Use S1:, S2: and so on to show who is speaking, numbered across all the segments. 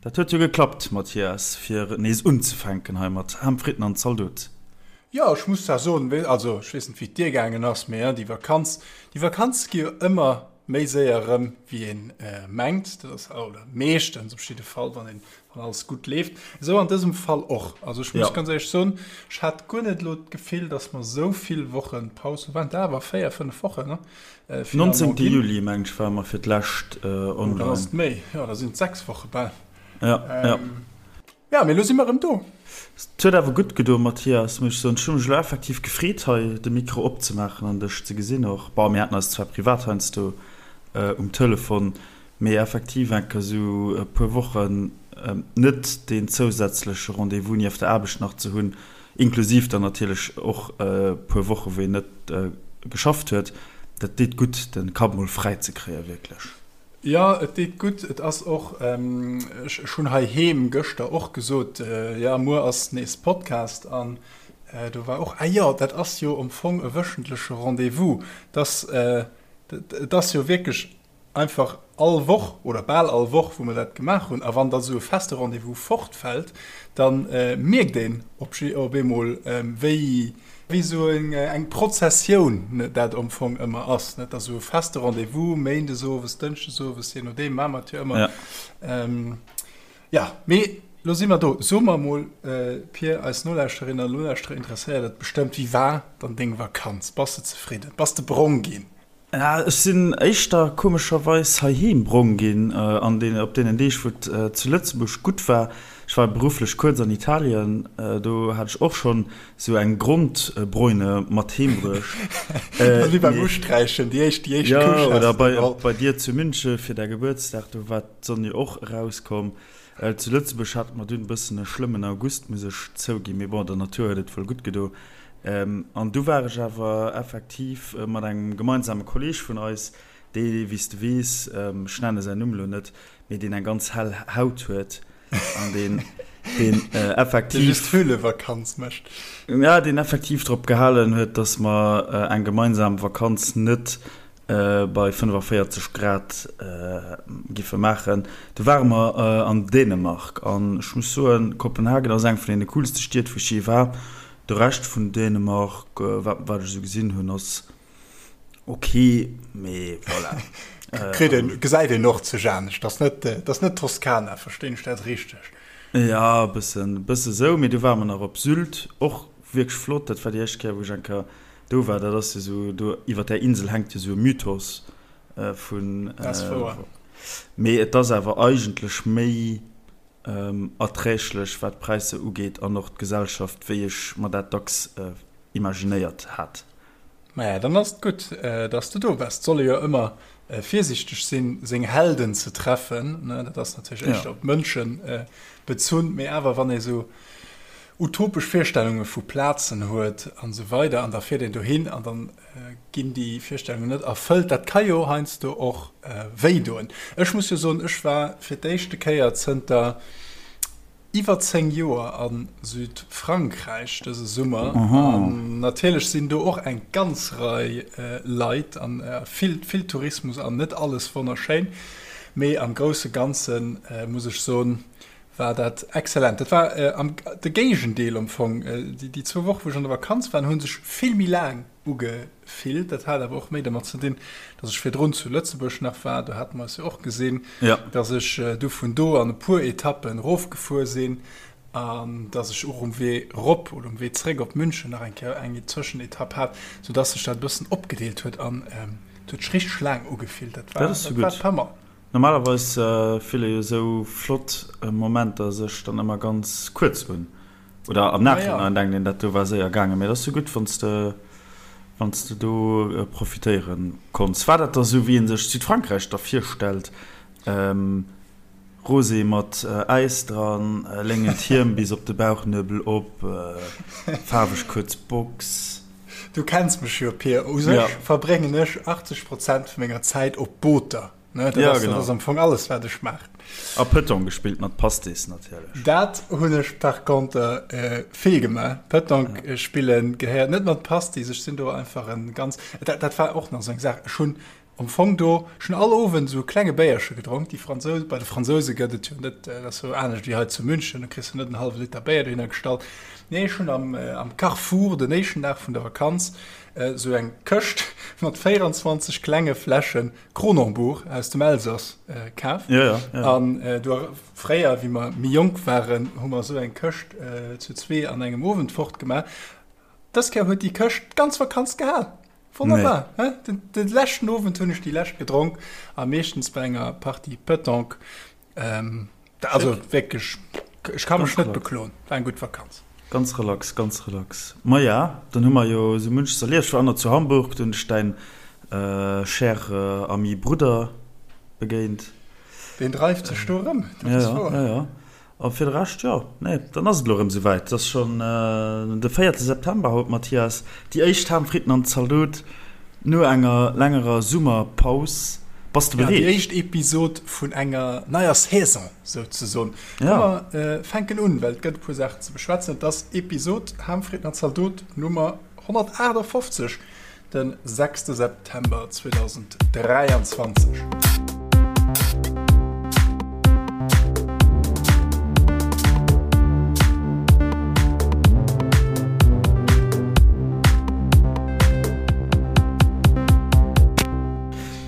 S1: Dat huet jo geklappt, Mathias, fir nees unzefänken hei mat Ham, Fritten an Zaldot.
S2: Jo, ech muss zwar soen, also ech weess net wéi et dir gaangen ass, mee déi Vakanz, déi Vakanz gi jo ëmmer méi séier erëm wéi een mengt. Dat ass, oder meeschtens op jidde Fall, wann een, wann alles gutt leeft. Esou an dësem Fall och. Also ech muss ganz éierlech soen, ech hat guer net elo d'Gefill, datt mer esou vill Woche Paus hu. Waren et awer 4, 5 Wochen, ne?
S1: 19. Juli, meng ech, ware mer fir d'lescht online.
S2: Oh, dann ass et méi. Jo, da sinn et 6 Woche bal.
S1: Ja, ja.
S2: Ja, mee lo si mer erëm do.
S1: Et huet awer gutt gedoen, Mathias, muss ech soen. Ech hu mech elo effektiv gefreet, hei de Mikro opzemaachen an dech ze gesinn och. Bon, mir haten eis zwar privat heiansdo um Telefon, mee effektiv eng Kéier esou e puer Wochen net deen zousätzleche Rendez-vous nieft der Aarbecht nach ze hunn, inklusiv dann natierlech och e puer Woche wou een net geschafft huet, dat deet gutt, de Kapp mol fräi ze kréien, wierklech.
S2: Jo, et deet gutt. Et ass och, ech hunn heiheem gëschter och gesot, jo, muer ass nees Podcast an do war och, ah jo, dat ass jo am Fong e wöchentleche Rendez-vous. Dass, et ass jo wierklech einfach all Woch oder bal all Woch, wou mer dat gemaach hunn. A wann da sou e feste Rendez-vous fortfält, da mierkt een op eemol, wéi, Wéi esou eng Prozessioun dat am Fong ëmmer ass, net? Also e feste Rendez-vous, méindes owes, dënschdes owes, je nodeem, maache mer et jo ëmmer. Ja, mee lo si mer do. So mer emol, Pir, eis Nolauschterinnen an Nolauschterer interesséiert et bestëmmt, Wéi war dann deng Vakanz? Bass de zefridden? Bass de brong ginn?
S1: Ech sinn éischter komescherweis heiheem brong ginn an den, op deenen Deeg wou et zu Lëtzebuerg gutt war. Ech war berufflech kuerz an Italien, do hat ech och schonn esou eng Grondbräune mat heem bruecht.
S2: Wéi beim Usträichen, déi éischt, déi éischt
S1: Couche has de geholl. Jo, oder bei dir zu München fir däi Gebuertsdag, do war d'Sonn jo och erauskomm. Zu Lëtzebuerg hate mer dunn e bëssen e schlëmmen August, muss ech zouginn, mee bon, der Natur huet et wuel gutt gedo. An du war ech awer effektiv mat engem gemeinsame Kolleeg vun eis, dee, wéi s de weess, ech nenne säin Numm elo net, mee deen eng ganz hell Haut huet an deen, deen effektiv.
S2: Dee just Höhlevakanz mécht.
S1: Ja, deen effektiv drop gehalen huet, dass mer eng gemeinsam Vakanz net bei 45 Grad giffe maachen. Du ware mer an Dänemark an ech muss soen, Kopenhagen ass eng vun deene coolste Stied wou ech je war. De Rescht vun Dänemark, wat wat ech esou gesinn hunn, ass ok, mee voilà.
S2: Kritt een, gesäit een och zeg anescht. Ass net, ass net Toskana, verstinn ech dat richteg?
S1: Ja, e bëssen, e bësse sou, mee du ware mer nach op Sylt, och wierklech flott. Dat war déi éischt Kéier wou ech eng Kéier Do war, dat ass jo sou, do iwwer där Insel hänkt jo sou e Mythos vun.
S2: Dat ass wouer.
S1: Mee et ass awer eigentlech méi erträglech, wat d'Präisser ugeet an och d'Gesellschaft, wéi ech mer dat dacks imaginéiert hat.
S2: Maja, dann ass et gutt, dass de do bass. Et soll ee jo ëmmer virsiichteg sinn, seng Helden ze treffen. Dat ass natierlech éischter op d'Mënsche bezunn, mee awer wann ee sou utopesch Virstellunge vu Plazen huet an esou weider an da fiert een dohin an dann ginn déi Virstellungen net erfëllt. Dat ka jo heiansdo och wéi doen. Ech muss jo soen, ech war fir d'éischte Kéier zënter iwwer 10 Joer a Südfrankräich dëse Summer an natierlech sinn do och eng ganz Rei Leit an vill, vill Tourismus an net alles wonnerschéin, mee am grousse Ganze muss ech soen, war dat excellent. Dat war am de Géigendeel am Fong. Déi zwou Woche wou ech an der Vakanz waren, hu sech vill méi laang ugefillt. Dat hat awer och méi dermat ze dinn, datt ech virdrun zu Lëtzebuerg nach war, do hate mer eis jo och gesinn, datt ech du vun do an e puer Etappen erofgefuer sinn an datt ech och um Wee erop oder um Wee zréck op München nach eng Kéier eng Zwëschenetapp hat, soudatt sech dat e bëssen opgedeelt huet an et huet sech richteg laang ugefillt.
S1: Dat war, dat war d'Hammer. Normalerweis fille jo sou flott Momenter sech dann ëmmer ganz kuerz un, oder am Nachhinein denkt een, dat do war séier gaangen, mee et ass sou gutt, wann s de wann s de do profitéiere konns. War dat da sou, wéi ee sech Südfrankräich da virstellt, Rosé mat Äis dran, léngent Hiem bis op de Bauchnuebel op, faarweg kuerz Box?
S2: Du kenns mech jo, Pir, u sech verbréngen ech 80 Prozent vu menger Zäit op Booter. Ne, dat
S1: ja,
S2: ass,
S1: genau.
S2: Dat ass am Fong alles, wat ech maachen.
S1: A Petanque gespillt mat Pastis natierlech.
S2: Dat hunn ech par contre äh, vill gemaach. Petanque ja. Äh, spillen gehéiert net mat Pastis. Ech sinn do einfach en ganz. Dat, dat war och nach sou eng Saach. Ech hunn. Am Fong do, ech hunn all Owend esou e klenge Béierche gedronk. Déi Fransous, bei de Fransouse gëtt et jo net, dat ass jo anescht wéi hei zu München, do kriss de net en hallwe Liter Béier dohinner gestallt. Nee, ech hunn am, am Carrefour den éischten Dag vun der Vakanz esou eng Këscht mat 24 klenge Fläsche Kronenbourg aus dem Elsass kaf.
S1: Ja, ja,
S2: ja. An do, fréier, wéi mer méi jonk waren, hu mer esou eng Këscht zu zwee an engem Owend fortgemaach. Dës Kéier huet déi Këscht d'ganz Vakanz gehal. Wonnerbar, nee. Den, den leschten Owend hunn ech déi lescht gedronk a meeschtens bei enger Partie Petanque. Ähm, also wierklech, ech ka mech net bekloen, war eng gutt Vakanz.
S1: Ganz relax, ganz relax. Ma ja, dann hu mer jo esou munches erlieft. Ech war och nach zu Hamburg, do hunn ech däin äh, cher äh, Ami Brudder begéint.
S2: Deen dreift sech do erëm,
S1: dat ass wouer. Ja, ja, ja. A fir de Rescht, jo, nee, dann ass et elo erëm esouwäit. Et ass schonn de véierte September haut, Mathias. Déi éischt Ham, Fritten an Zaldot no enger längerer Summerpaus. Bass de bereet?
S2: Ja, déi éischt Episod vun enger neier Saison souzesoen. Komm, mer fänken un, well et gëtt e puer Saachen ze beschwätzen. Et ass Episod Ham, Fritten an Zaldot Nummer 158. Den sechste September 2023.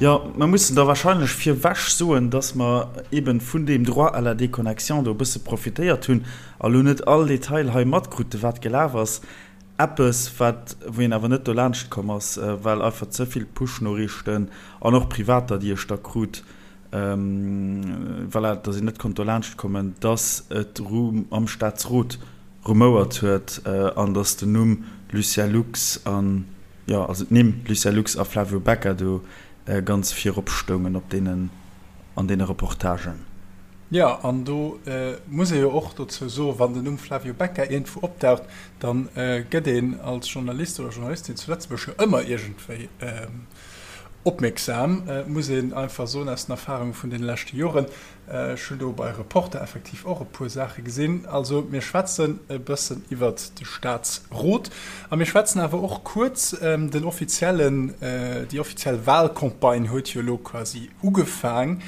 S1: Jo, mer mussen da wahrscheinlech virwech soen, dass mer eben vun deem Droit à la déconnexion do e bësse profitéiert hunn a lo net all Detail hei matkruten, wat gelaf ass. Eppes, wat, wou een awer net dolaanscht komm ass, well einfach ze vill Push-Noriichten an och privater, déi ech da krut, voilà, dass een net konnt dolaanscht kommen, dass et am Staatsrot rumouert huet an dass den Numm Lucien Lux an, jo, also d'Nimm Lucien Lux a Flavio Becca do ganz virop stoungen op deenen, an deene Reportagen.
S2: Jo, an do muss ee jo och dozou soen, wann den Numm Flavio Becca iergendwou opdaucht, da gëtt een als Journalist oder Journalistin zu Lëtzebuerg jo ëmmer iergendwéi opmierksam, muss een einfach soen, aus den Erfarunge vun deene leschte Joren. Ech hunn do bei Reporter effektiv och e puer Saache gesinn. Also mir schwätzen e bëssen iwwert de Staatsrot a mir schwätzen awer och kuerz, den offiziellen, déi offiziell Walcampagne huet jo elo quasi ugefaang.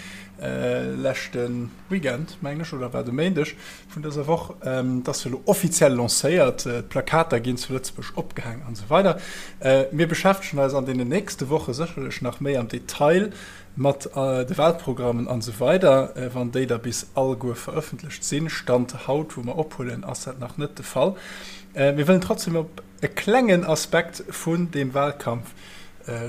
S2: Leschte Weekend, mengen ech, oder war et e Méindeg vun dëser Woch, et ass jo elo offiziell lancéiert, d'Plakater ginn zu Lëtzebuerg opgehaang an esou weider. Mir beschäftegen eis an deenen nächste Woche sécherlech nach méi am Detail mat de Wahlprogrammen an esou weider, wann déi da bis alleguer verëffentlecht sinn. Stand haut, wou mer ophuelen, ass dat nach net de Fall. Mir wëllen trotzdem op e klengen Aspekt vun deem Wahlkampf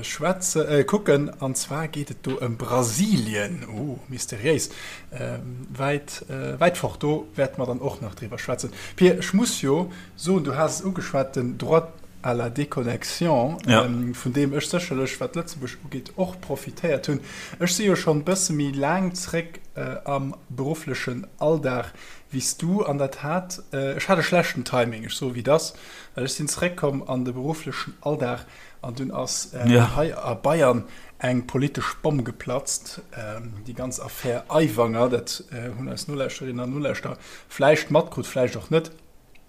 S2: schwätze kucken an zwar geet et do ëm Brasilien, oh mysteriéis, wäit wäit fort, do wäerte mer dann och nach driwwer schwätzen. Pir, ech muss jo soen, du has es ugeschwat, den Droit à la déconnexion, vun deem ech sécherlech, wat Lëtzebuerg ugeet, och profitéiert hunn. Ech si jo schonn e bësse méi laang zréck am berufflechen Alldag wéi s du an dat hat, ech hat e schlechten Timing, ech soe wéi et ass, well ech sinn zréckkomm an de berufflechen Alldag An dunn ass hei a Bayern eng politesch Bomm geplatzt, déi ganz Affär Aiwanger. Dat hunn eis Nolauschterinnen an Nolauschterer vläicht matkrut, vläicht och net.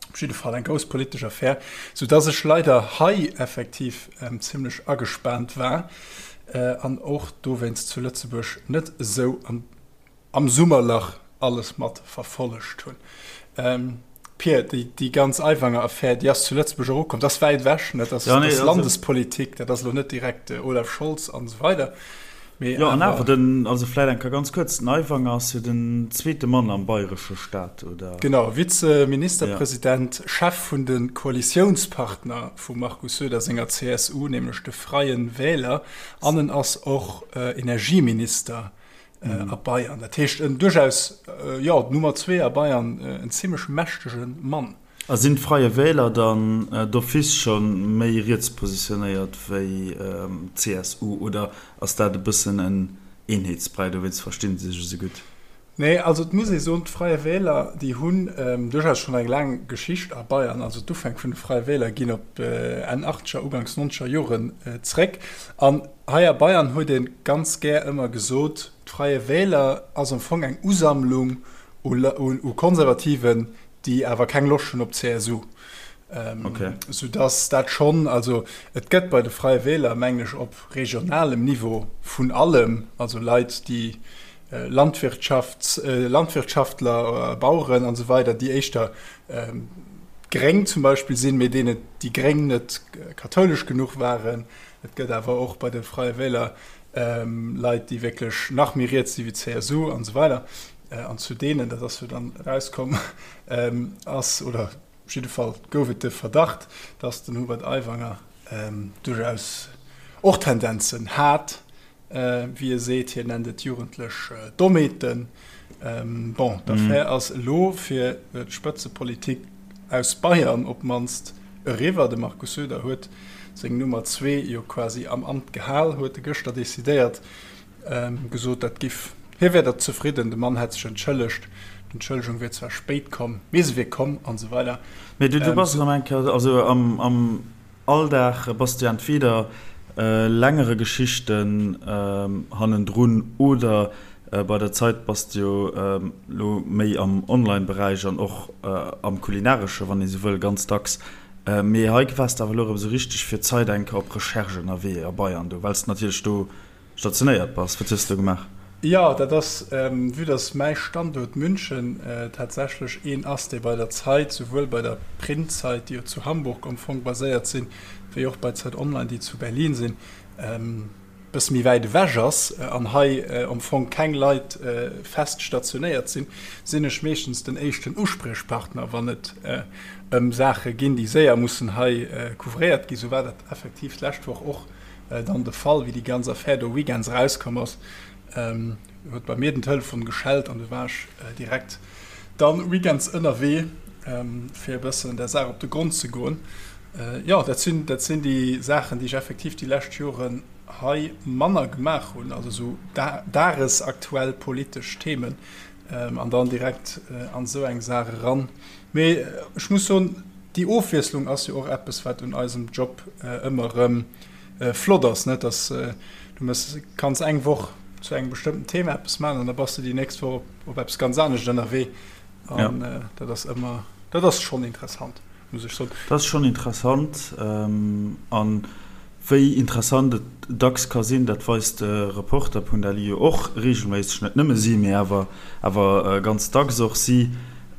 S2: Op jidde Fall eng grouss politesch Affär, soudass ech leider hei effektiv zimmlech agespaant war an och dowéinst zu Lëtzebuerg net esou an am Summerlach alles mat verfollegt hunn. Pir, déi ganz Aiwanger-Affär, déi ass zu Lëtzebuerg och ukomm. Dat ass wäit ewech, ne? Dat ass Landespolitik, dat ass elo net direkt Olaf Scholz an esou weider.
S1: Mee jo, an awer den, also vläit eng Kéier ganz kuerz, den Aiwanger ass jo den zweete Mann am bayresche Staat, oder?
S2: Genau, Vizeministerpresident, Chef vun de Koalitiounspartner vum Markus Söder senger CSU, nämlech de Freien Wähler, an en ass och Energieminister a Bayern. Dat heescht en duerchaus, jo, d'Nummer zwee a Bayern, en zimmlech mächtege Mann.
S1: A sinn d'Freie Wähler dann d'office scho méi riets positionéiert wéi d'CSU oder ass dat e bëssen en Eenheetsbräi, dowéinst versti se sech esou gutt?
S2: Nee, also et muss ee soen, d'Freie Wähler, déi hunn duerchaus schonn eng laang Geschicht a Bayern. Also d'Ufänk vun de Freie Wähler ginn op Enn achtzeger, uganks nonzeger Joren zréck. An hei a Bayern huet ee ganz gär ëmmer gesot, d'Freie Wähler ass am Fong eng Usammlung u Konservativen, déi awer keng Loscht hunn op d'CSU. Sou dass dat schonn, also et gëtt bei de Freie Wähler, mengen ech, op regionalem Niveau vun allem, also Leit, déi Landwirtschafts-, Landwirtschaftler, Baueren an esou weider, déi éischter gréng zum Beispill sinn, mee deenen déi Gréng net kathoulesch genuch waren. Et gëtt awer och bei de Freie Wähler Leit, déi wierklech nach méi riets si wéi d'CSU an esou weider. An zu deenen, dat ass jo dann erauskomm, ass, oder op jidde Fall gouf et de Verdacht, datt den Hubert Aiwanger duerchaus och Tendenzen hat, wéi e seet, hien nennt et jugendlech Dommheeten. Bon, d'Affär ass elo fir d'Spëtzepolitik aus Bayern op d'mannst eriwwer. De Markus Söder huet seng Nummer zwee jo quasi am Amt gehal, huet e gëschter decidéiert, gesot, dat giff, hie wär der zefridden, de Mann hätt sech entschëllegt, d'Entschëllegung wier zwar spéit komm, mee se wier komm an esou weider.
S1: Mee du bass erëm eng Kéier, also am Alldag bass du entweder längere Geschichten hannendrun oder bei der Zeit bass du jo lo méi am Online-Beräich an och am kulinaresche, wann ee sou wëll, ganz dacks. Mee hei waars de awer elo erëm sou richteg fir d'Zeit eng Kéier op Recherche ënnerwee a Bayern do, well s de natierlech do stationéiert bass. Wat hues de do gemaach?
S2: Jo, dat ass, vue dass mäi Standuert München tatsächlech een ass, dee bei der Zeit, souwuel bei der Printzeit, déi jo zu Hamburg am Fong baséiert sinn, wéi och bei Zeit Online, déi zu Berlin sinn, e bësse méi wäit ewech ass an hei am Fong keng Leit fest stationéiert sinn, sinn ech meeschtens den éischten Uspriechpartner, wann et ëm Saache ginn, déi séier mussen hei couvréiert ginn. Sou war dat effektiv d'lescht Woch och Dann de Fall, wéi déi ganz Affär do weekends erauskomm ass, huet bei mir den Telefon geschellt an du war ech direkt dann weekends ënnerwee, fir e bëssen der Saach op de Grond ze goen. Jo, dat sinn, dat sinn déi Saachen, déi ech effektiv déi lescht Joren hei manner gemaach hunn, also esou dagesaktuell politesch Themen an dann direkt an esou eng Saach eran. Mee ech muss soen, déi Ofwiesslung ass jo och eppes, wat un eisem Job ëmmer erëm flott ass, net? Dass du mëss, kanns eng Woch zu engem bestëmmten Thema eppes maachen an da bass du déi nächst Woch op, op eppes ganz anescht ënnerwee. An ja. dat ass ëmmer, dat ass schonn interessant, muss ech soen.
S1: Dat ass schonn interessant. An wéi interessant et dacks ka sinn, dat weist de Reporter.lu jo och reegelméisseg, net nëmme si, mee awer, awer ganz dacks och si.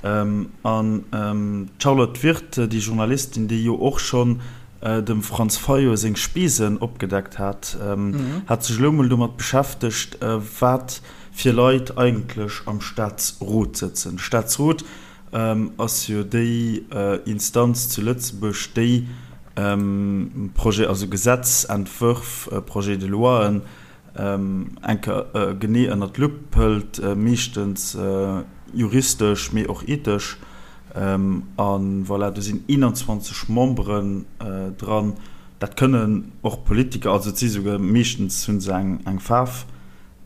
S1: An d'Charlotte Wirth, déi Journalistin, déi jo och schonn dem Franz Fayot seng Spesen opgedeckt hat, hat sech elo mol domat beschäftegt, wat fir Leit eigentlech am Staatsrot sëtzen. De Staatsrot ass jo déi Instanz zu Lëtzebuerg, déi Projet, also Gesetzentwërf, Projets de loien, eng Kéier genee ënner d'Lupp hëlt, meeschtens juristesch, mee och ethesch. A voilà, do sinn 21 Memberen dran. Dat kënnen och Politiker, also et si souguer, meeschtens hu se eng Faarf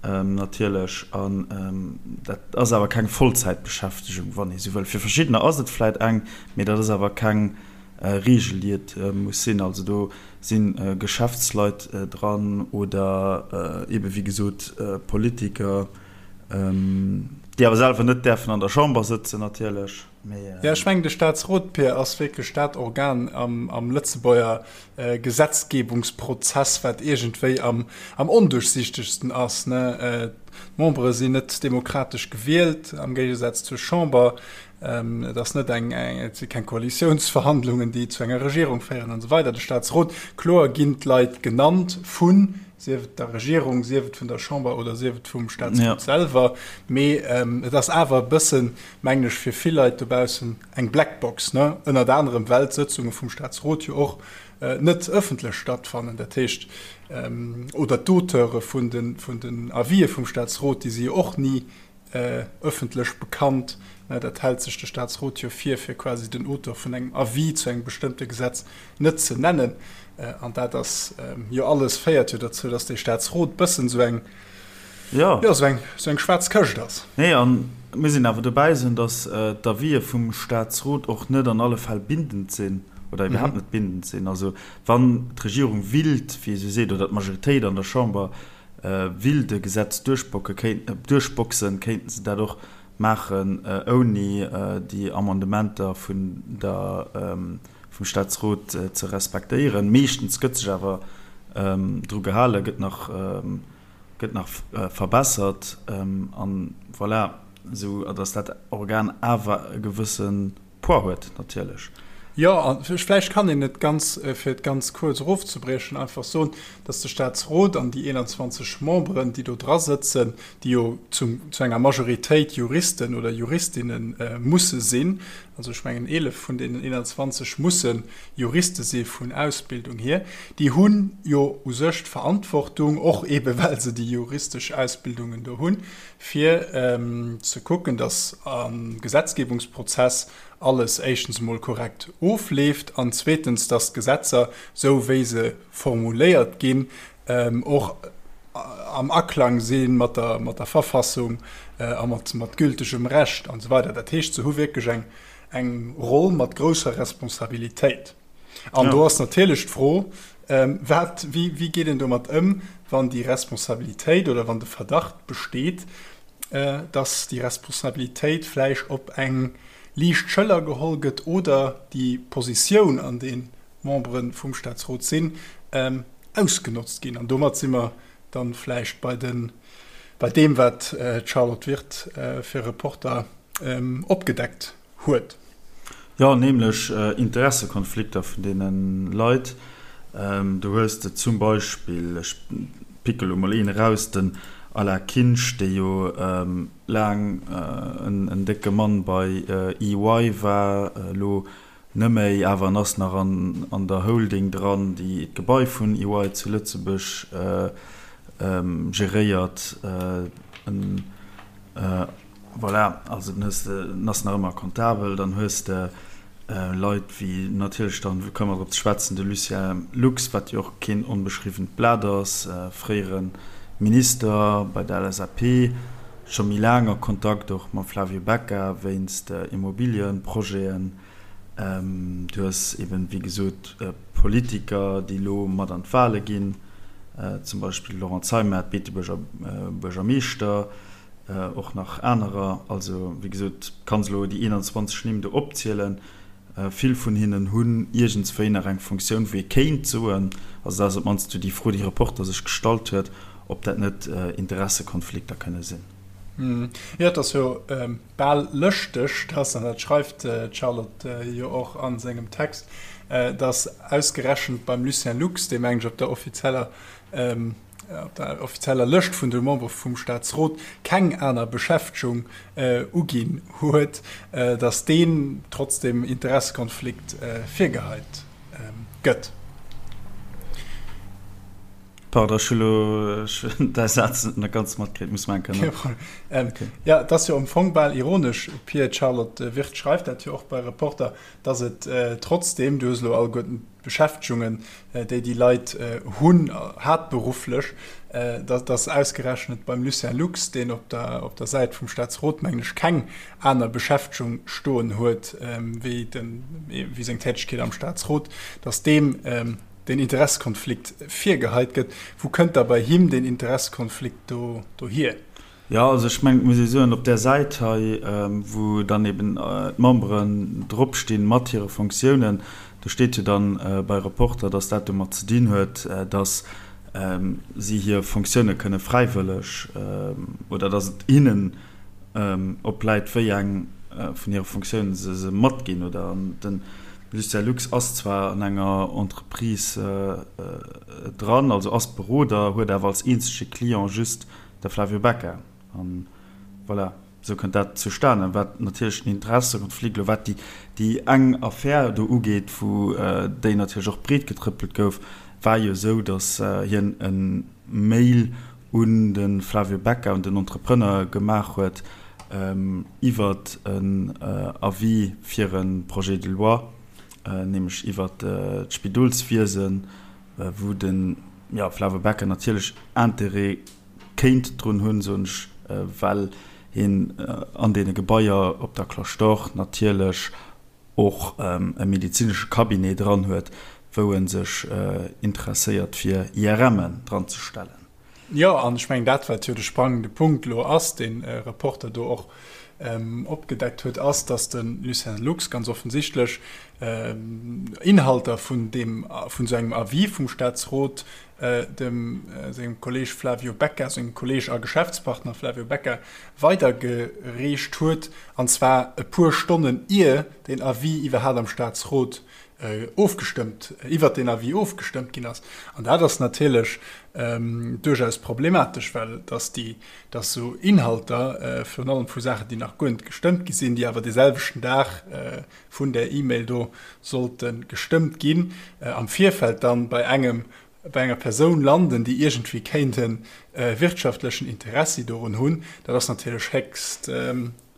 S1: natierlech. An dat ass awer keng Vollzäitbeschäftegung, wann ee sou wëll. Fir verschiddener ass et vläit eng, mee dat ass awer keng Reegel, déi et muss sinn. Also do si Geschäftsleit dran oder eebe wéi gesot Politiker, déi awer selwer net däerfen an der Chamber sëtzen natierlech.
S2: Jo, ech mengen de Staatsrot, Pir, ass wierklech dat Organ am Lëtzebuerger Gesetzgebungsprozess, wat iergendwéi am onduerchsichtegsten ass. D'Membere sinn net demokratesch gewielt, am Géigesaz zur Chamber. Et ass net eng, et si keng Koalitiounsverhandlungen, déi zu enger Regierung féieren an esou weider. De Staatsrot, kloer ginn d'Leit genannt vun, sief et der Regierung, sief et vun der Chamber oder sief et vum Staatsrot selwer, mee et ass awer e bëssen, mengen ech, fir vill Leit dobaussen eng Blackbox, ne? Ënnert anerem, well d'Sëtzunge vum Staatsrot jo och net ëffentlech stattfannen. Dat heescht, oder d'Auteure vun den Avisë vum Staatsrot, déi si jo och ni ëffentlech bekannt. Dat hält sech de Staatsrot jo vir, fir quasi den Auteur vun engem Avis zu engem bestëmmte Gesetz net ze nennen. An dat ass jo alles, féiert jo dozou, datt dee Staatsrot bëssen esou eng, jo, esou eng, esou eng schwaarz Këscht ass.
S1: Nee, a mir sinn awer dobäi soen, datt d'Avisë vum Staatsrot och net an alle Fäll bindend sinn oder iwwerhaapt net bindend sinn. Also wann d'Regierung willt, wéi ee sou seet, oder d'Majoritéit an der Chamber Willt e Gesetz duerchboxen, kéinten se dat och maachen ouni déi Amendementer vun der, vum Staatsrot ze respektéieren. Meeschtens gëtt sech awer dru gehalen, gëtt nach, gëtt nach verbessert an voilà, esou datt dat Organ awer e gewësse Poids huet natierlech.
S2: Jo, a vläicht kann een et ganz, fir et ganz kuerz erofzebriechen, einfach soen, datt de Staatsrot an déi 21 Memberen, déi do dra sëtzen, déi jo zum, zu enger Majoritéit Juristen oder Juristinne musse sinn, also ech mengen 11 vun deenen 21 musse Juriste si vun Ausbildung hier, déi hu jo u sech d'Verantwortung, och eebe well se déi juristesch Ausbildungen do hunn, fir ze kucken, datt am Gesetzgebungsprozess alles éischtens emol korrekt ofleeft an zweetens, datt d'Gesetzer, esou wéi se formuléiert ginn, och am Aklang si mat der Verfassung a mat gültegem Recht an esou weider. Dat heescht, se hu wierklech eng Roll mat grousser Responsabilitéit. An do ass natierlech d'Fro, Wat, wéi, wéi geet een domat ëm, wann déi Responsabilitéit oder wann de Verdacht besteet, dass déi Responsabilitéit vläicht op eng liicht Schëller geholl gëtt oder déi Positioun, an deem d'Membere vum Statsrot sinn, ausgenotzt ginn? An domat si mer dann vläicht bei de, bei deem, wat d'Charlotte Wirth fir Reporter opgedeckt huet.
S1: Jo, nämlech Interessekonflikter vun deene Leit. Do hues de zum Beispill, ech picke lo mol een eraus, den Alain Kinsch, dee jo laang en décke Mann bei EY war, elo net méi, awer en ass nach an der Holding dran, déi d'Gebai vun EY zu Lëtzebuerg geréiert. Voilà, also dann hues de, en ass nach ëmmer comptabel, dann hues de Leit wéi natierlech dann, komme mer drop ze schwätzen, de Lucien Lux, wat jo och keen onbeschriwwent Blat ass, fréiere Minister bei der LSAP, scho méi laang a Kontakt och mam Flavio Becca wéinst Immobiliëprojeten. Du hues eben, wéi gesot, Politiker, déi elo mat an d'Wale ginn, zum Beispill de Laurent Zeimet, Beetebuerger Buergermeeschter, och nach anerer. Also, wéi gesot, kanns elo déi 21 Nimm do opzielen. Vill vun hinnen hunn iergendswéi nach eng Funktioun, wou ee kéint soen, also dat ass op d'mannst esou déi Fro, déi Reporter sech gestallt huet, ob dat net Interessekonflikter kënne sinn.
S2: Jo, et ass jo bal lëschteg, dass, an dat schreift d'Charlotte jo och a sengem Text, dass ausgerechent beim Lucien Lux, dee meng ech op der offizieller op der offizieller Lëscht vun de Membere vum Staatsrot keng aner Beschäftegung uginn huet, datt deen trotzdem Interessekonflikt virgeheit gëtt.
S1: Pardon, ech hu lo däi Saz net ganz matkritt, muss mer eng Kéier nach.
S2: Kee Problem. Jo, et ass jo am Fong bal ironesch, Pir, d'Charlotte Wirth schreift dat jo och bei Reporter, datt et trotzdem, du hues elo alleguerten d'Beschäftegungen, déi déi Leit hunn, haaptberufflech, dass ausgerechnet beim Lucien Lux, deen op der, op der Säit vum Staatsrot, mengen ech, keng aner Beschäftegung stoen huet wéi den, wéi seng Tätegkeet am Staatsrot, dass deem deen Interessekonflikt virgeheit gëtt. Wou kënnt da bei him deen Interessekonflikt do dohier?
S1: Jo, also ech mengen, et muss ee soen, op där Säit hei, wou dann eben d'Memberen dropstinn mat hire Fonctiounen, do steet jo dann bei Reporter, dass dat domat ze dinn huet, dass si hir Fonctioune kënne fräiwëlleg oder dass et hinnen opläit, wéi eng vun hire Fonctiounen se se matginn oder. An de Lucien Lux ass zwar an enger Entreprise dran, also ass Beroder, huet awer als eenzege Client just De Flavio Becca. An voilà, esou kënnt dat zustanen. Wat natierlech den Interessekonflikt elo, wat déi, déi eng Affär do ugeet, wou déi natierlech och breetgetrëppelt gouf, war jo esou, datt hien e Mail un de Flavio Becca, un den Entrepreneur gemaach huet iwwert en Avis fir e Projet de loi, nämlech iwwert d'Spidolswiesen, wou de Flavio Becca natierlech Interêt kéint drun hunn, soen ech, well hien an deene Gebaier op der Cloche d'Or natierlech och e medezinesche Cabinet dran huet, wou e sech interesséiert fir IRMen dran ze stellen.
S2: Jo, an ech mengen dat, wat jo de sprangende Punkt elo ass, deen Reporter do och. opgedeckt huet, ass, datt de Lucien Lux ganz offensichtlech Inhalter vun deem, vun esou engem Avis vum Staatsrot dem sengem Kolleg Flavio Becca, sengem Kolleg a Geschäftspartner Flavio Becca weidergereecht huet, an zwar e puer Stonnen ier deen Avis iwwerhaapt am Staatsrot ofgestëmmt, iwwert deen Avis ofgestëmmt ginn ass. An dat ass natierlech duerchaus problematesch, well dass déi, dass esou Inhalter, virun allem vu Saachen, déi nach guer net gestëmmt gi sinn, déi awer dee selwechten Dag vun där E-Mail do sollte gestëmmt ginn, am Virfeld dann bei engem, bei enger Persoun landen, déi iergendwéi kéint e wirtschaftlechen Interessi dorun hunn, dat ass natierlech héchst,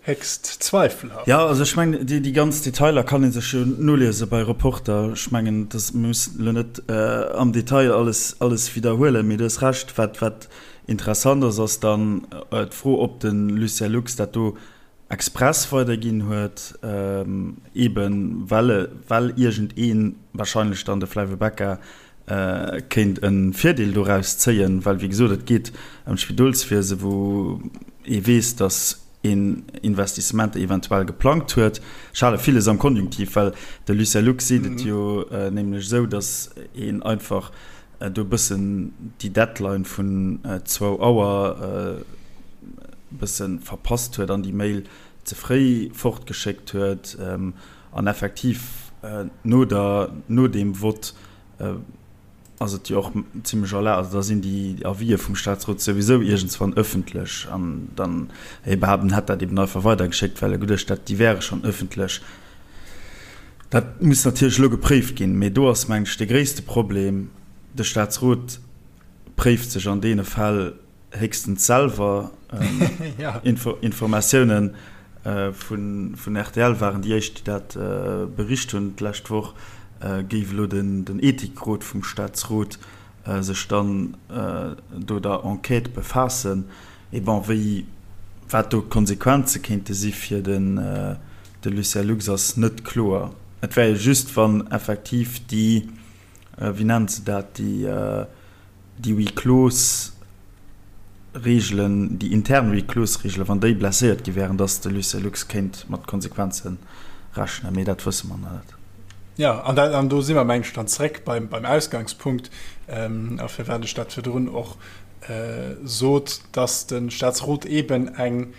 S2: héchst zweifelhaft.
S1: Jo, also ech mengen, déi, déi ganz Detailer kann ee sech jo noliese bei Reporter. Ech mengen, dass, mir mussen elo net am Detail alles, alles widderhuelen, mee du hues Recht, wat, wat interessant ass, ass dann d'Fro, ob de Lucien Lux dat do express weiderginn huet, eeben well well iergendeen, wahrscheinlech dann de Flavio Becca, kéint e Virdeel doraus zéien, well wéi gesot, et geet ëm d'Spidolswiese wou ee weess, datt een Investissementer eventuell geplangt huet. Ech hale villes am Konjunktiv, well de Lucien Lux seet et jo nämlech esou, datt een einfach do e bëssen déi Deadline vun zwou Auer, bësse verpasst huet an déi Mail ze fréi fortgeschéckt huet an effektiv no der, no deem Vott ass et jo och zimlech erlaabt, also da sinn déi Avisë vum Staatsrot souwisou iergendswann ëffentlech an dann hie behaapt, en hätt dat eben einfach weidergeschéckt, well e geduecht hätt, déi wäre schonn ëffentlech. Dat muss natierlech elo gepréift ginn, mee do ass, mengen ech, de gréisste Problem, de Staatsrot préift sech an deene Fäll, héchstens selwer Informatiounen vun rtl waren déi éischt, déi dat bericht hunn d'lescht Woch, géif elo den Ethikrot vum Staatsrot sech dann do der Enquête befaassen. Mee bon, wéi, wat do d'Konsequenze kéinte si fir de Lucien Lux ass net kloer. Et wär jo just, wann effektiv déi, wéi nennt se dat, déi, déi Huis clos Reegelen, déi intern Huis clos Reegelen, wann déi blesséiert gi wären, datt de Lucien Lux kéint mat Konsequenze rechnen, mee dat wësse mer nach net.
S2: Jo, an dat, an do si mer, meng ech, dann zréck beim, beim Ausgangspunkt, a firwat ech dat virdrun och sot, datt de Staatsrot eeben eng,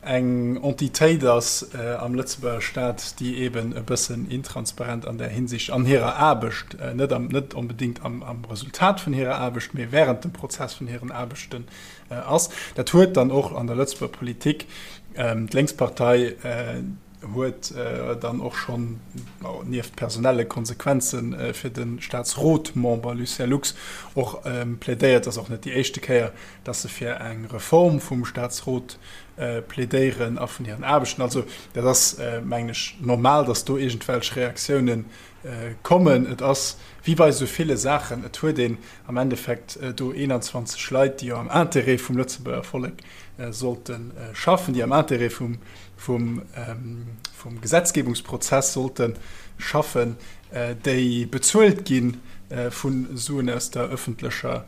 S2: eng Entitéit ass am Lëtzebuerger Staat, déi eeben e bëssen intransparent an där Hinsicht an hirer Aarbecht, net am, net onbedéngt am, am Resultat vun hirer Aarbecht, mee während dem Prozess vun hiren Aarbechten ass. Dat huet dann och an der Lëtzebuerger Politik d'Lénkspartei huet dann och schonn, nieft personelle Konsequenze fir de Staatsrotmember Lucien Lux, och plädéiert, ass och net déi éischte Kéier, dass se fir eng Reform vum Staatsrot plädéieren a vun hiren Aarbechten. Also dat ass, mengen ech, normal, dass do iergendwelch Reaktiounen kommen. Et ass wéi bei esou ville Saachen, et huet een am Endeffekt do 21 Leit, déi jo am Intérêt vum Lëtzebuerger Vollek sollte schaffen, déi am Intérêt vum, vum, vum Gesetzgebungsprozess sollte schaffen, déi bezuelt gi vu Suen aus der öffentlecher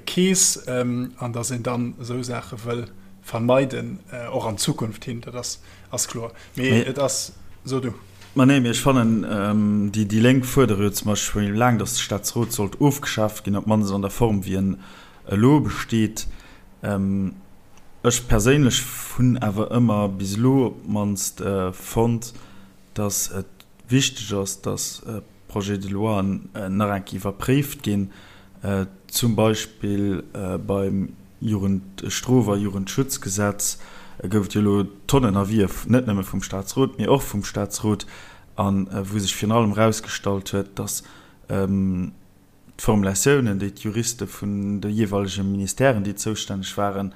S2: Keess, an datt een dann esou Saache wëll vermeiden, och an Zukunft hin, dat ass, ass kloer. Mee et ass, so du.
S1: Ma nee, mee ech fannen, déi, déi Lénk fuerdere jo zum Beispill scho laang, datt de Staatsrot sollt ofgeschaaft ginn, op d'mannst an der Form, wéi en elo besteet. Ech perséinlech hunn awer ëmmer bis elo op d'mannst fonnt, datt et wichteg ass, datt Projets de loien nach eng Kéier iwwerpréift ginn, zum Beispill beim Jugendstrof a Jugendschutzgesetz gouf et jo elo Tonnen Avisë, net nëmme vum Staatsrot, mee och vum Staatsrot, a wou sech virun allem erausgestallt huet, datt d'Formulatiounen, déi d'Juriste vun de jeeweilege Ministèren, déi zoustänneg waren,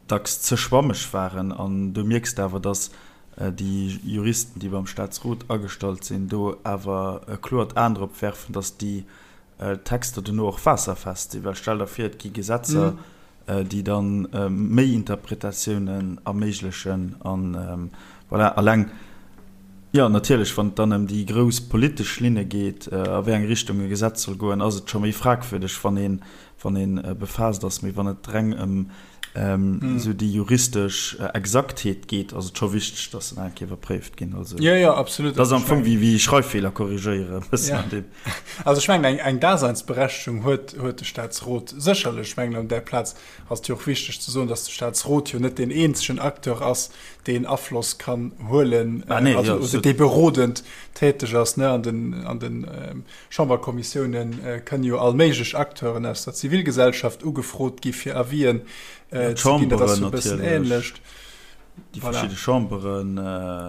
S1: dacks ze schwammeg waren. An do mierks de awer, datt déi Juristen, déi beim Staatsrot agestallt sinn, do awer e kloert Aen drop werfen, datt déi Texter dono och waasserfest sinn. Well stell der vir, et gi Gesetzer, déi da méi Interpretatiounen erméiglechen. An voilà, alleng, jo, natierlech, wann et dann ëm déi grouss politesch Linne geet, a wéi eng Richtung e Gesetz soll goen, ass et scho méi fragwürdeg, wann ee wann ee befaasst ass. Mee wann et reng ëm. Esou déi juristesch Exaktheet geet, ass et scho wichteg, dass se nach eng Kéier iwwerpréift ginn. Also,
S2: jo, jo, absolut.
S1: Dat ass am Fong wéi, wéi Schreiffeeler korrigéieren, e bëssen an deem.
S2: Also ech mengen, eng, eng Daseinsberechtegung huet, huet de Staatsrot sécherlech. Ech mengen, an där Plaz ass et jo och wichteg ze soen, dass de Staatsrot jo net deen eenzegen Acteur ass, deen Afloss kann huelen,
S1: ah, nee,
S2: also,
S1: jo,
S2: oder dee berodend täteg ass, ne, an den, an den Chamberkommissiounen kënnen jo all méiglech Acteuren aus der Zivilgesellschaft ugefrot gi fir Avisen ze ginn. Dat ass jo e bëssen
S1: ähnlecht. Déi verschidde Chamberen,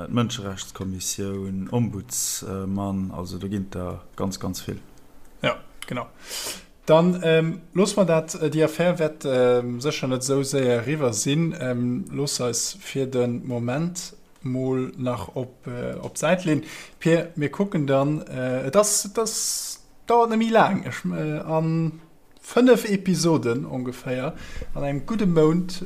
S1: d'Mënscherechtskommissioun, Ombudsman, also do ginn et der ganz, ganz vill.
S2: Jo, genau. Dann loosse mer dat, déi Affär wäert sécher net esou séier eriwwer sinn, loosse eis fir de Moment mol nach op op d'Säit leen. Pir, mir kucken dann, et ass, et ass, dauert net méi laang, ech an 5 Episoden ongeféier, an engem gudde Mount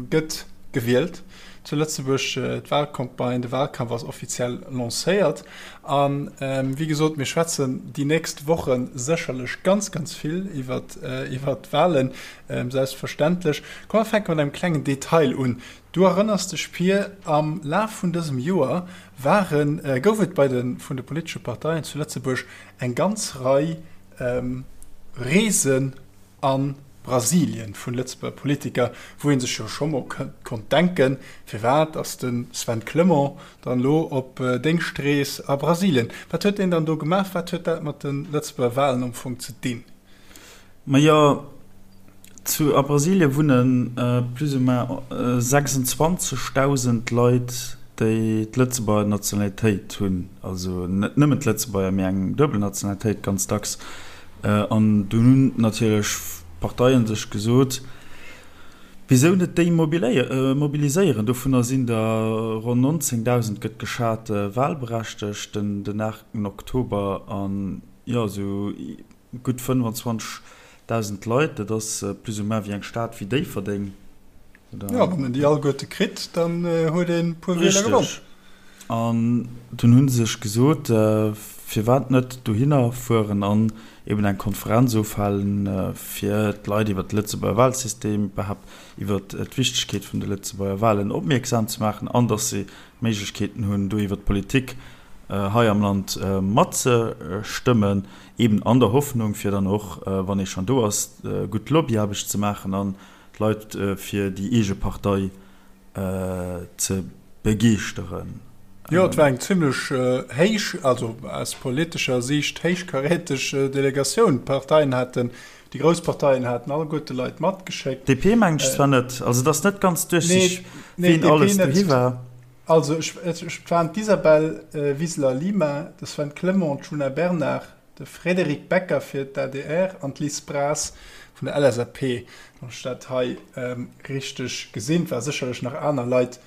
S2: gëtt gewielt zu Lëtzebuerg. D'Wahlcampagne, de Wahlkampf ass offiziell lancéiert an wéi gesot, mir schwätzen déi nächst Woche sécherlech ganz, ganz vill iwwert iwwert d'Wahlen, selbstverständlech. Komm mer fänke mat engem klengen Detail un. Du erënners dech Pir, am Laf vun dësem Joer waren, gouf et bei de vun de politesche Parteien zu Lëtzebuerg eng ganz Rei Reesen a Brasilien vun Lëtzebuerger Politiker, wou ee sech jo scho mol konnt denken, firwat ass de Sven Clement dann elo op Déngschtrees a Brasilien? Wat huet deen dann do gemaach? Wat huet dat mat de Lëtzebuerger Walen am Fong ze dinn?
S1: Majo, zu a Brasilie wunne plus ou moins 26.000 Leit, déi d'Lëtzebuerger Nationalitéit hunn, also net nëmmen d'Lëtzebuerger, mee eng duebel Nationalitéit ganz dacks. An dunn hunn natierlech d'Parteien sech gesot, Wisou net déi mobiliséieren? Dovunner sinn der ronn 19.000, gëtt geschat, walberechtegt den 8 Oktober. An jo, esou Gutt 25.000 Leit, dat ass plus ou moins wéi eng Stad wéi Déifferdeng,
S2: oder? Jo, wann een déi alleguerte kritt, dann huet een e puer Wieler gewonn.
S1: Richteg. An dunn hu se sech gesot, firwat net dohinner fueren an eben eng Konferenz ofhalen, fir d'Leit iwwer de Lëtzebuerger Wahlsystem, iwwerhaapt iwwer d'Wichtegkeet vun de Lëtzebuerger Wahlen opmierksam ze maachen an datt se Méiglechkeeten hunn, do iwwer d'Politik hei am Land matzestëmmen. Eben an der Hoffnung, fir dann och, wann ee schonn do ass, gutt Lobbyaarbecht ze maachen an d'Leit fir déi eege Partei ze begeeschteren.
S2: Jo, et war eng zimlech héich, also aus politescher Siicht héichkaräteg Delegatioun. D'Parteien haten, déi grouss Parteien haten alleguerte Leit matgeschéckt.
S1: DP mengen ech zwar net, also et ass net ganz duerchsichteg, wien alles dohi war.
S2: Also ech, et waren d'Isabel Wiseler-Lima, de Sven Clement, d'Djuna Bernard, de Frédéric Becker fir d'ADR an d'Liz Braz vun der LSAP, wann ech dat hei richteg gesinn. Et ware sécherlech nach aner Leit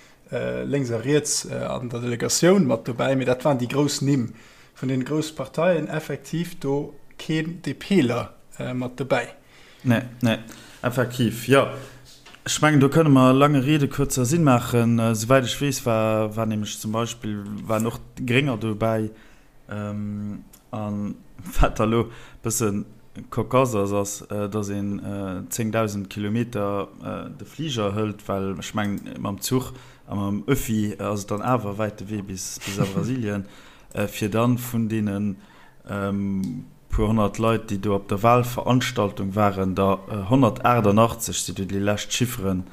S2: lénks a riets an der Delegatioun mat dobäi, mee dat waren déi grouss Nimm vun deene grousse Parteien. Effektiv do keen DPler mat dobäi.
S1: Nee, nee, effektiv, jo. Ech mengen, do kënne mer lange Rede, kurzer Sinn maachen. Souwäit ech weess, war, war nämlech zum Beispill, waren och d'Grénger dobäi. A wat da lo e bësse cocasse ass, ass, datt een 10.000 Kilometer de Fliger hëlt, well ech mengen, mam Zuch a mam Öffi ass et dann awer e wäite Wee bis, bis a Brasilien, fir dann vun deenen, Puer 100 Leit, déi do op der Wahlveranstaltung waren, der 188 si du déi lescht Chifferen,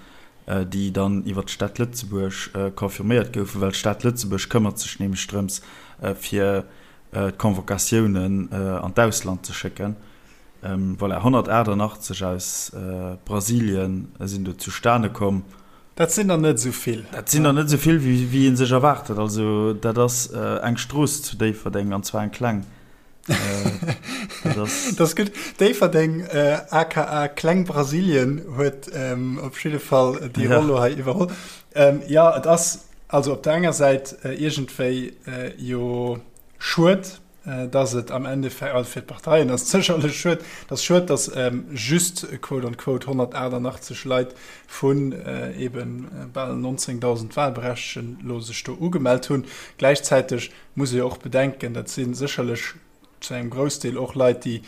S1: déi dann iwwer d'Stad Lëtzebuerg confirméiert goufen, well d'Stad Lëtzebuerg këmmert sech nämlech drëms, fir d'Convocatiounen an d'Ausland ze schécken. Voilà, 188 aus Brasilien sinn do zustane komm.
S2: Dat sinn der net esou vill.
S1: Dat sinn der net esou vill, wéi ee sech erwaart huet. Also dat ass eng Strooss zu Déifferdeng, an zwar eng kleng.
S2: Dat ass gutt. Déifferdeng, aka Kleng Brasilien, huet op jidde Fall déi Roll elo hei iwwerholl. Jo, et ass also op der enger Säit iergendwéi jo schued, dass et am Endeffekt, also fir d'Parteien ass et sécherlech schued, et ass schued, dass just quote on quote 188 Leit vun eebe bal 19.000 Wahlberechtegten elo sech do ugemellt hunn. Gläichzäiteg muss ee jo och bedenken, dat si sécherlech. zu engem Groussdeel och Leit, déi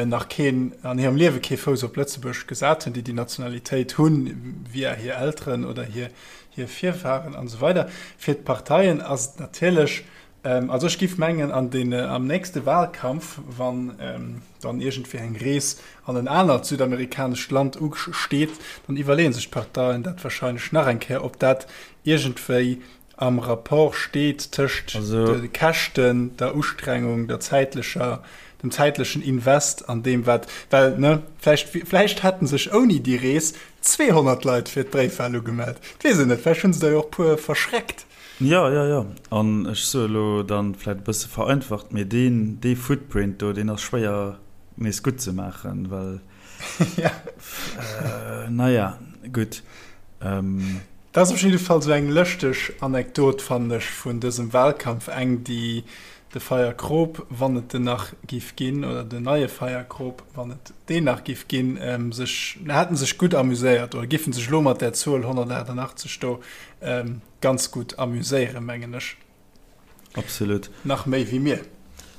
S2: nach keen, an hirem Liewe kee Fouss op Lëtzebuerg gesat hunn, déi déi Nationalitéit hunn via hir Elteren oder hir Virfahren an esou weider. Fir d'Parteien ass et natierlech, also ech giff mengen an den, am nächste Wahlkampf, wann dann iergendwéi eng Rees an en anert südamerikanescht Land usteet, dann iwwerleeë sech d'Parteien dat wahrscheinlech nach eng Kéier, ob dat iergendwéi am Rapport steet tëscht de Käschten, der Ustrengung, der zäitlecher, dem zäitlechen Invest an deem wat, well, ne, vläicht, vläicht hätte sech ouni déi Rees 200 Leit fir d'Bréifwal ugemellt, et weess een net, vläicht hu se der jo och puer verschreckt.
S1: Jo, jo, jo. An ech soe elo dann vläicht e bësse vereinfacht, mee deen, dee Footprint do, deen ass schwéier nees gutt ze maachen, well, naja, gutt.
S2: Dat ass op jidde Fall esou eng lëschteg Anekdot, fannen ech, vun dësem Wahlkampf, eng, déi de Feierkrop, wann et en nach giff ginn, oder den neie Feierkrop, wann et deen nach giff ginn, sech, hätten sech gutt amuséiert oder giffen sech elo mat där Zuel 188 do ganz gutt amuséieren, mengen ech.
S1: Absolut.
S2: Nach méi wéi mir.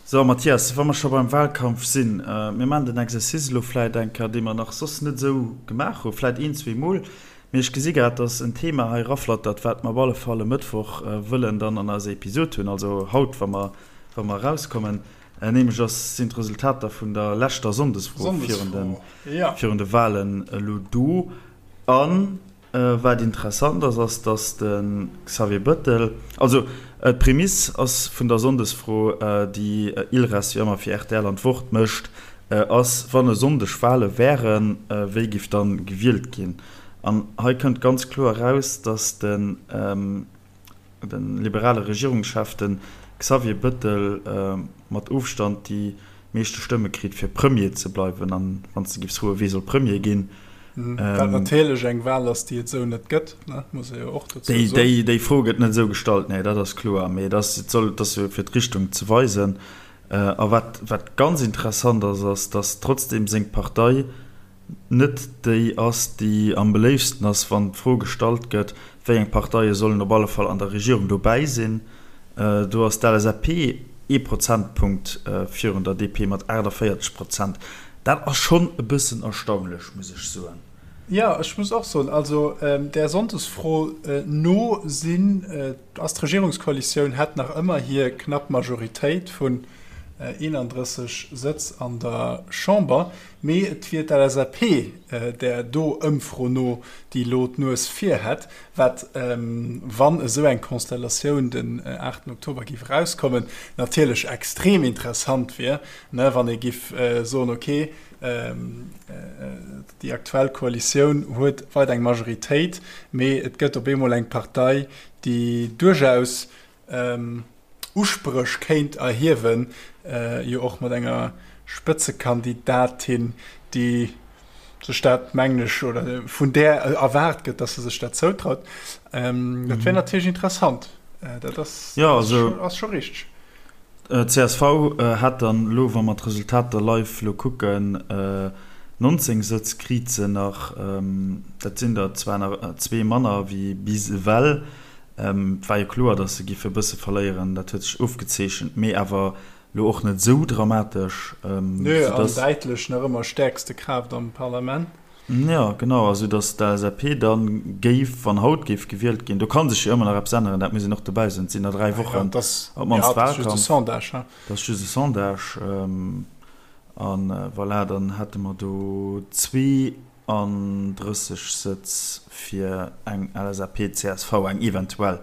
S1: So, Mathias, wa mer scho beim Wahlkampf sinn, mir maachen den Exercice elo vläit eng Kéier, dee mer nach soss net esou gemaach hunn, vläit een, zweemol, mee ech gesi grad, dass en Thema hei eraflattert, wat mer op alle Fall e Mëttwoch wëllen dann an eiser Episod hunn, also haut, wa mer, wa mer erauskommen, nämlech ass, sinn d'Resultater vun der leschter Sonndesfro virun de, virun de Wahlen elo do. An Wat interessant ass, ass, datt de Xavier Bëttel, also d'Prämiss ass vun der Sonndesfro, déi Ilres wéi ëmmer fir rtl an d'Wort mécht, ass, wann e Sonndeg Wale wären, wéi giff dann gewielt ginn? An hei kënnt ganz kloer eraus, datt de liberale Regierungschef, de Xavier Bëttel, mat Ofstand déi meeschte Stëmme kritt fir Premier ze bleiwen. An wann s de giffs froen, wee soll Premier ginn?
S2: Wat natierlech eng Wal ass, déi et esou net gëtt, muss ee jo och dozou
S1: soen. Déi Fro gëtt net esou gestallt, nee, dat ass kloer. Mee et ass, et soll, et ass jo fir d'Richtung ze weisen. A wat, wat ganz interessant ass, ass, datt trotzdem seng Partei net déi ass, déi am beléiftsten ass, wann d'Fro gestallt gëtt, wéi eng Parteie sollen op alle Fall an der Regierung dobäi sinn. Do ass d'LSAP ee Prozentpunkt virun der DP mat 48 Prozent. Dat ass schonn e bëssen erstaunlech, muss ech soen.
S2: Jo, ech muss och soen, also där Sonndesfro no sinn, ass d'Regierungskoalitioun hätt nach ëmmer hir knapp Majoritéit vun 31 Sëtz an der Chamber. Mee et wier d'LSAP, där do Ëmfro no déi elo d'Nues vir hätt, wat, wann esou eng Konstellatioun den 8 Oktober géif erauskommen, natierlech extrem interessant wier, wann ee géif soen, ok, déi aktuell Koalitioun huet weider eng Majoritéit, mee et gëtt op eemol eng Partei, déi duerchaus Uspréch kéint erhiewen, jo och mat enger Spëtzekandidatin, déi sech dat, mengen ech, oder vun där erwaart gëtt, datt se sech dat zoutraut. Dat wär natierlech interessant. Dat ass scho richteg.
S1: Csv hätt dann elo, wa mer d'Resultater live elo kucken, 19 Sëtz kriit se nach. Dat sinn der zwar nach zwee manner wéi bis ewell. Et war jo kloer, datt se giffe e bësse verléieren, dat huet sech ofgezeechent, mee awer elo och net esou dramatesch.
S2: Nö, an däitlech nach ëmmer stäerkste Kraaft am Parlament.
S1: Jo, genau, a sou datt d'LSAP da géif, wann haut géif gewielt ginn, do ka sech jo ëmmer nach eppes änneren, dat muss een och dobäi soen, et sinn nach 3 Wochen
S2: op d'mannst Wahlkampf.
S1: Dat ass just e Sondage. A voilà, dann hätte mer do 32 Sëtz fir eng LSAP-CSV, eng eventuell.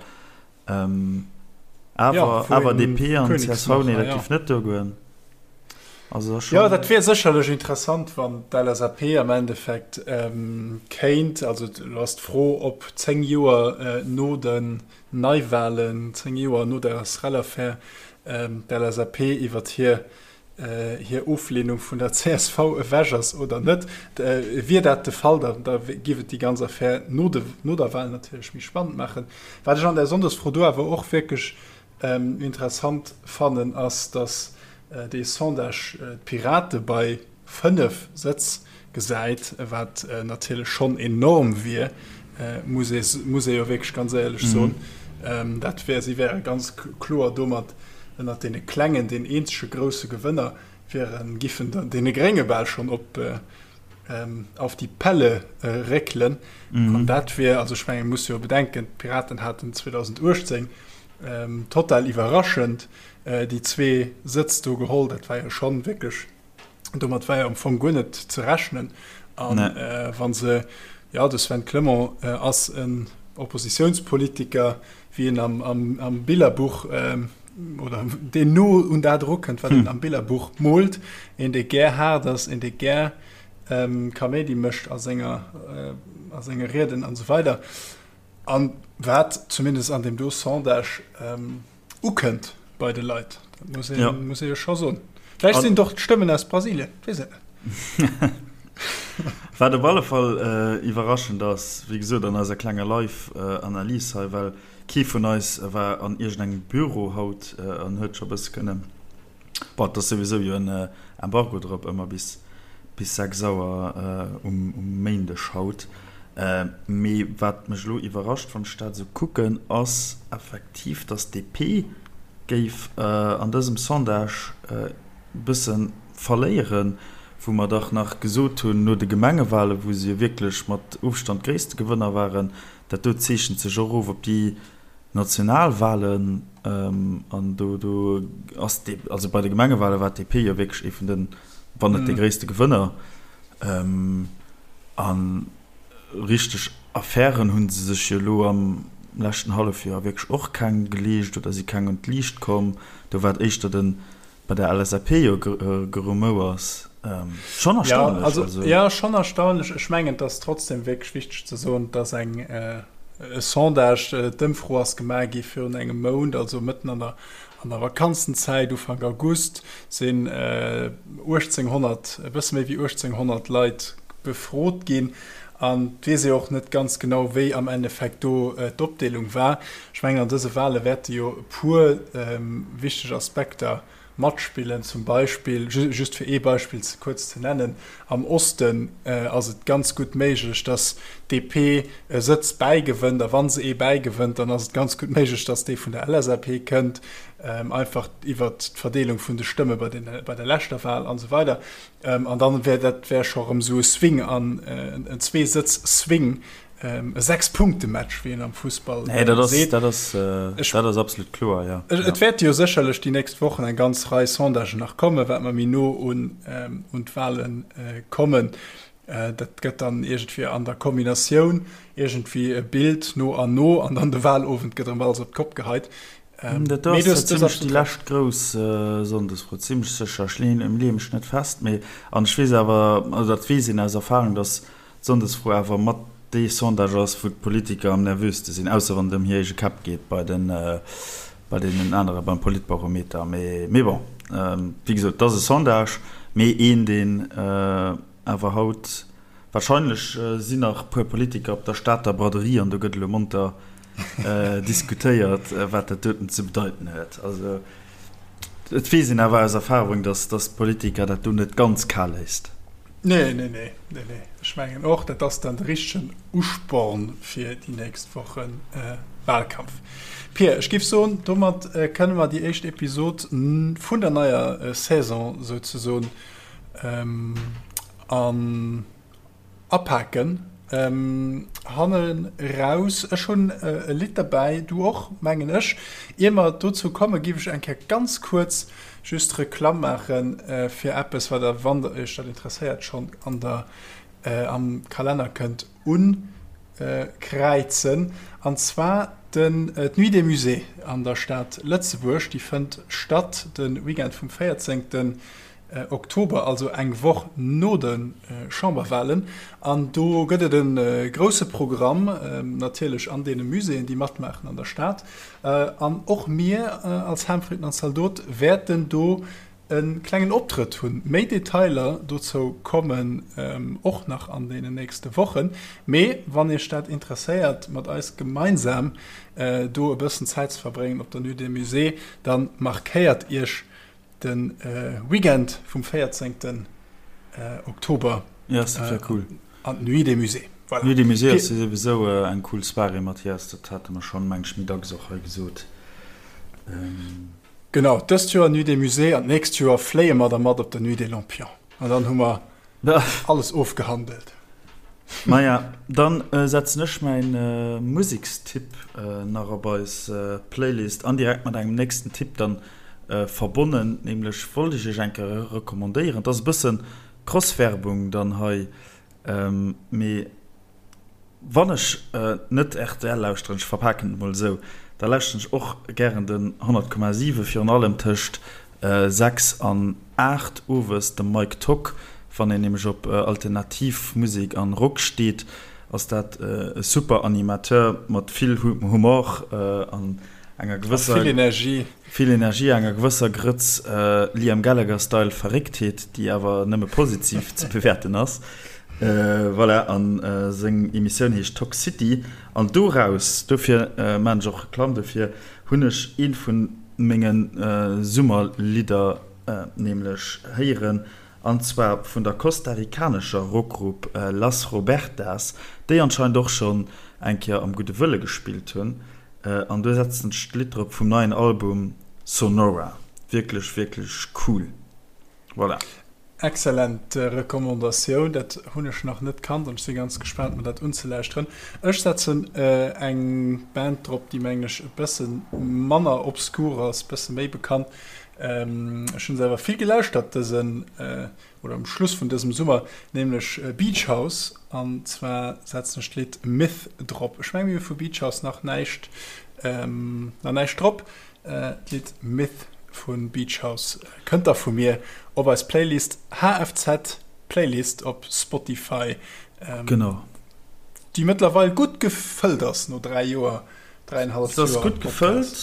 S1: Awer, awer DP an csv, nee, dat géif net duergoen.
S2: Also dat ass Jo, dat wier sécherlech interessant, wann d'LSAP am Endeffekt kéint, also elo ass d'Fro, ob 10 Joer no den Neiwahlen, 10 Joer no der SREL-Affär, d'LSAP iwwert hir hir Oflehnung vun der csv ewech ass oder net. Wier dat de Fall, da da géif et déi ganz Affär no de no der Wahl natierlech méi spannend maachen. Wat ech an där Sonndesfro do awer och wierklech interessant fannen, ass, datt dee Sondage d'Pirate bei 5 Sëtz gesäit, wat natierlech schonn enorm wier, muss ee muss ee jo wierklech ganz éierlech soen. Dat wär, si wäre ganz kloer domat. ënnert deene Klengen deen eenzege grousse Gewënner wieren, giffen deene Grénge bal schonn op auf die Pelle réckelen. An dat wier, also ech mengen, muss jo bedenken, d'Piraten haten 2018 total iwwerraschend déi zwee Sëtz do geholl. Dat war jo schonn wierklech, domat war jo am Fong guer net ze rechnen. An wa se, jo, de Sven Clement ass en Oppositiounspolitiker, wéi en am Billerbuch, oder deen no un dat erukënnt, wat een am Billerbuch moolt, een dee gär haart ass, een dee gär Kaméidi mécht a senger, a senge Rieden an esou weider. An wat zumindest an deem do Sondage ukënnt bei de Leit, dat muss ee, muss ee jo scho soen. Vläicht sinn et och d'Stëmmen aus Brasilien, weess et
S1: net. Wat op alle Fall iwwerraschend ass, wéi gesot an eiser klenger Live-Analys hei, well Kee vun eis war an iergendengem Büro haut an huet scho bësse kënnen, bon, et ass souwisou jo en Embargo drop ëmmer bis bis 6 Auer um Méindeg haut. Mee wat mech elo iwwerrascht, wann ech dat esou kucken, ass effektiv, datt d'DP géif an dësem Sondage e bësse verléieren, wou mer dach nach gesot hunn no de Gemengewahlen, wou se jo wierklech mat Ofstand gréisste Gewënner waren, Dat do zeechent sech och of op déi national Wahlen. An do do ass d'D, also bei de Gemengewahlen war d'DP jo wierklech ee vun den, wann net dee gréisste Gewënner. A richteg Affären hu se sech jo elo am leschten Hallefjoer wierklech och keng geleescht oder si keng un d'Liicht komm. Do war et éischter den bei der LSAP jo Gerumouers. Schonn
S2: erstaunlech. Ja, also, ja, schonn erstaunlech. Ech mengen, et ass trotzdem wierklech wichteg ze soen, dass eng e Sondage, d'Ëmfro ass gemaach gi virun engem Mount, also mëtten an der, an der Vakanzenzäit, Ufank August, sinn 1.800, e bësse méi wéi 1.800 Leit befrot ginn. An et weess ee och net ganz genau, wéi am Endeffekt do d'Opdeelung war. Ech mengen, an dëse Wahle wäerte jo e puer wichteg Aspekter matspillen. Zum Beispill, just fir ee Beispill ze kuerz ze nennen, am Osten ass et ganz gutt méiglech, datt d'DP e Sëtz bäigewënnt. A wa se ee bäigewënnt, dann ass et ganz gutt méiglech, datt dee vun der LSAP kënnt, einfach iwwert d'Verdeelung vun de Stëmme bei der leschter Wahl an esou weider. An dann wär dat wär scho rëm esou e Swing an en Zweesëtz-Swing, e Sechs-Punkte-Match, wéi een am Fussball
S1: Nee, dat ass, seet. dat ass, dat ass absolut kloer, jo.
S2: Et wäerte jo sécherlech déi nächst Wochen eng ganz Rei Sondagen nach kommen, wat mer méi no un un d'Wale kommen. Dat gëtt dann iergendwéi an der Kombinatioun iergendwéi e Bild no an no an dann de Walowend gëtt erëm alles op d'Kopp geheit.
S1: Dat do ass zimlech déi lescht grouss Sonndesfro, zimlech sécher. Ech leeë mech net fest, mee an ech weess awer, also dat weess een aus Erfahrung, datt d'Sonndesfro awer mat dee Sondage ass, wou d'Politiker am nervöste sinn, ausser wann et ëm hir eege Käpp geet bei den, bei deenen anere beim Politbarometer. Mee, mee bon, wéi gesot, et ass e Sondage, mee een, deen awer haut, Wahrscheinlech sinn nach puer Politiker op der Stater Braderie an do gëtt elo monter diskutéiert, wat dat doten ze bedeiten huet. Also et weess een awer aus Erfahrung, datt d'Politiker dat do net ganz kal léisst.
S2: Nee, nee, nee, nee, nee. Ech mengen och, dat ass dann de richtegen Usporn fir déi nächst Woche Wahlkampf. Pir, ech géif soen, domat kënne mer déi éischt Episod vun der neier Saison souzesoen An apaken hannen raus. Ech hunn e Lidd derbäi, du och, mengen ech. Ier mer dozou kommen, giff ech eng Kéier ganz kuerz just Reklamm maache fir eppes, wat der, wann der iech dat interesséiert, schonn an der, am Kalenner kënnt unkräizen. An zwar den, d'Nuit des Musées an der Stad Lëtzebuerg. Déi fënnt statt de Weekend vum 14. Oktober, also eng Woch no de Chamberwahlen. An do gëtt et e grousse Programm, natierlech an deene Muséeën, déi matmaachen an der Stad. An och mir als Ham, Fritten an Zaldot wäerten do e klengen Optrëtt hunn. Méi Detailer dozou kommen och nach an deenen nächste Wochen. Mee wann Iech dat interesséiert, mat eis gemeinsam do e bëssen Zäit ze verbréngen op der Nuit des Musées, da markéiert Iech De Weekend vum 14 Oktober
S1: Ja, dat wär cool.
S2: an d'Nuit des Musées.
S1: Voilà. Nuit des Musées ass jo souwisou eng cool Soirée, Mathias, dat hate mer schonn, meng ech, méi dacks och hei gesot.
S2: Genau, dëst Joer Nuit des Musées an d'nächst Joer fléie mer da mat op der Nuit des Lampions. An dann hu mer alles ofgehandelt.
S1: Maja, dann setzen ech mäin Musekstipp nach op eis Playlist an direkt mat engem nächsten Tipp dann verbonnen. Nämlech wollt ech iech eng Kéier recommandéieren, et ass e bëssen Cross-Werbung dann hei, mee Wann ech net rtl lauschteren, ech verpaken et mol esou, da lauschteren ech och gären den 100,7, virun allem tëscht 6 an 8 owes, dem Mike Tock. Wann een nämlech op alternativ Musek an Rock steet, ass dat e super Animateur mat vill Humor an enger gewësser.
S2: Vill Energie.
S1: Vill Energie, enger gewësser Grëtz Liam Gallagher-Style Verrécktheet, déi awer nëmme positiv ze bewäerten ass. Voilà, an seng Emissioun heescht Tock City. An doraus, dofir maan ech och Reklamm dofir, hunn ech eent vun menge Summerlidder nämlech héieren, an zwar vun der kostarikanescher Rockgrupp Las Robertas, déi anscheinend och schonn eng Kéier am Gudde Wëlle gespillt hunn. An do setzen ech d'Lidd drop vum neien Album Sonora. Wierklech, wierklech cool. Voilà.
S2: Excellent Recommandatioun, dat hunn ech nach net kannt an ech si ganz gespaant mer dat unzelauschteren. Ech setzen eng Band drop, déi mengen ech e bësse manner obskur ass, bësse méi bekannt. Ech hunn se awer vill gelauschtert dësen oder um Schluss vun dësem Summer, nämlech Beach House an zwar setzen ech d'Lidd Myth drop. Ech menge mir hu vu Beach House nach näischt nach näischt drop. D'Lidd Myth vu Beach House kënnt da vu mir op eis Playlist HFZ Playlist op Spotify.
S1: Genau.
S2: Déi mëttlerweil gutt gefëllt ass no 3 Joer,
S1: dräienhalleft Joer. Se ass gutt gefëllt,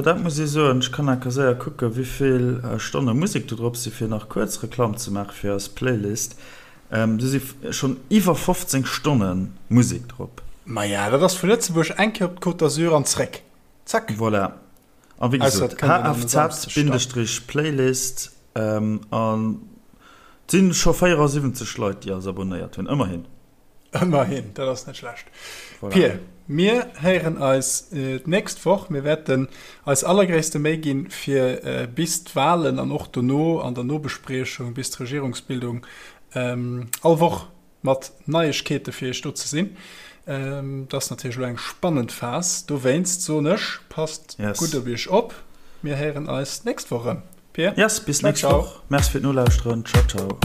S1: dat muss ee soen. Ech kann enker séier kucken, wéivill Stonne Musek do drop sinn, fir nach kuerz Reklamm ze maache fir eis Playlist. Do si schonn iwwer 15 Stonne Musek drop.
S2: Maja, dat ass vu Lëtzebuerg eng Kéier op d'Côte d'Azur an zréck.
S1: Zack! Voilà. A wéi gesot, hfz-playlist an et si scho 74 Leit, déi eis abonnéiert hunn. Ëmmerhin.
S2: Ëmmerhin, dat ass net schlecht. Voilà. Pir, mir héieren eis d'nächst Woch. Mir wäerten eis allergréisste Méi ginn, fir bis d'Walen an och dono an der Nobespriechung bis d'Regierungsbildung all Woch mat Neiegkeete fir iech do ze sinn. Dat ass natierlech elo eng spannend Phas. Dowéinst soen ech, passt gutt op iech op. Mir héieren eis d'nächst Woch erëm.
S1: Pir, Yes, bis nächst Woch. Merci fir d'Nolauschteren. Ciao, ciao.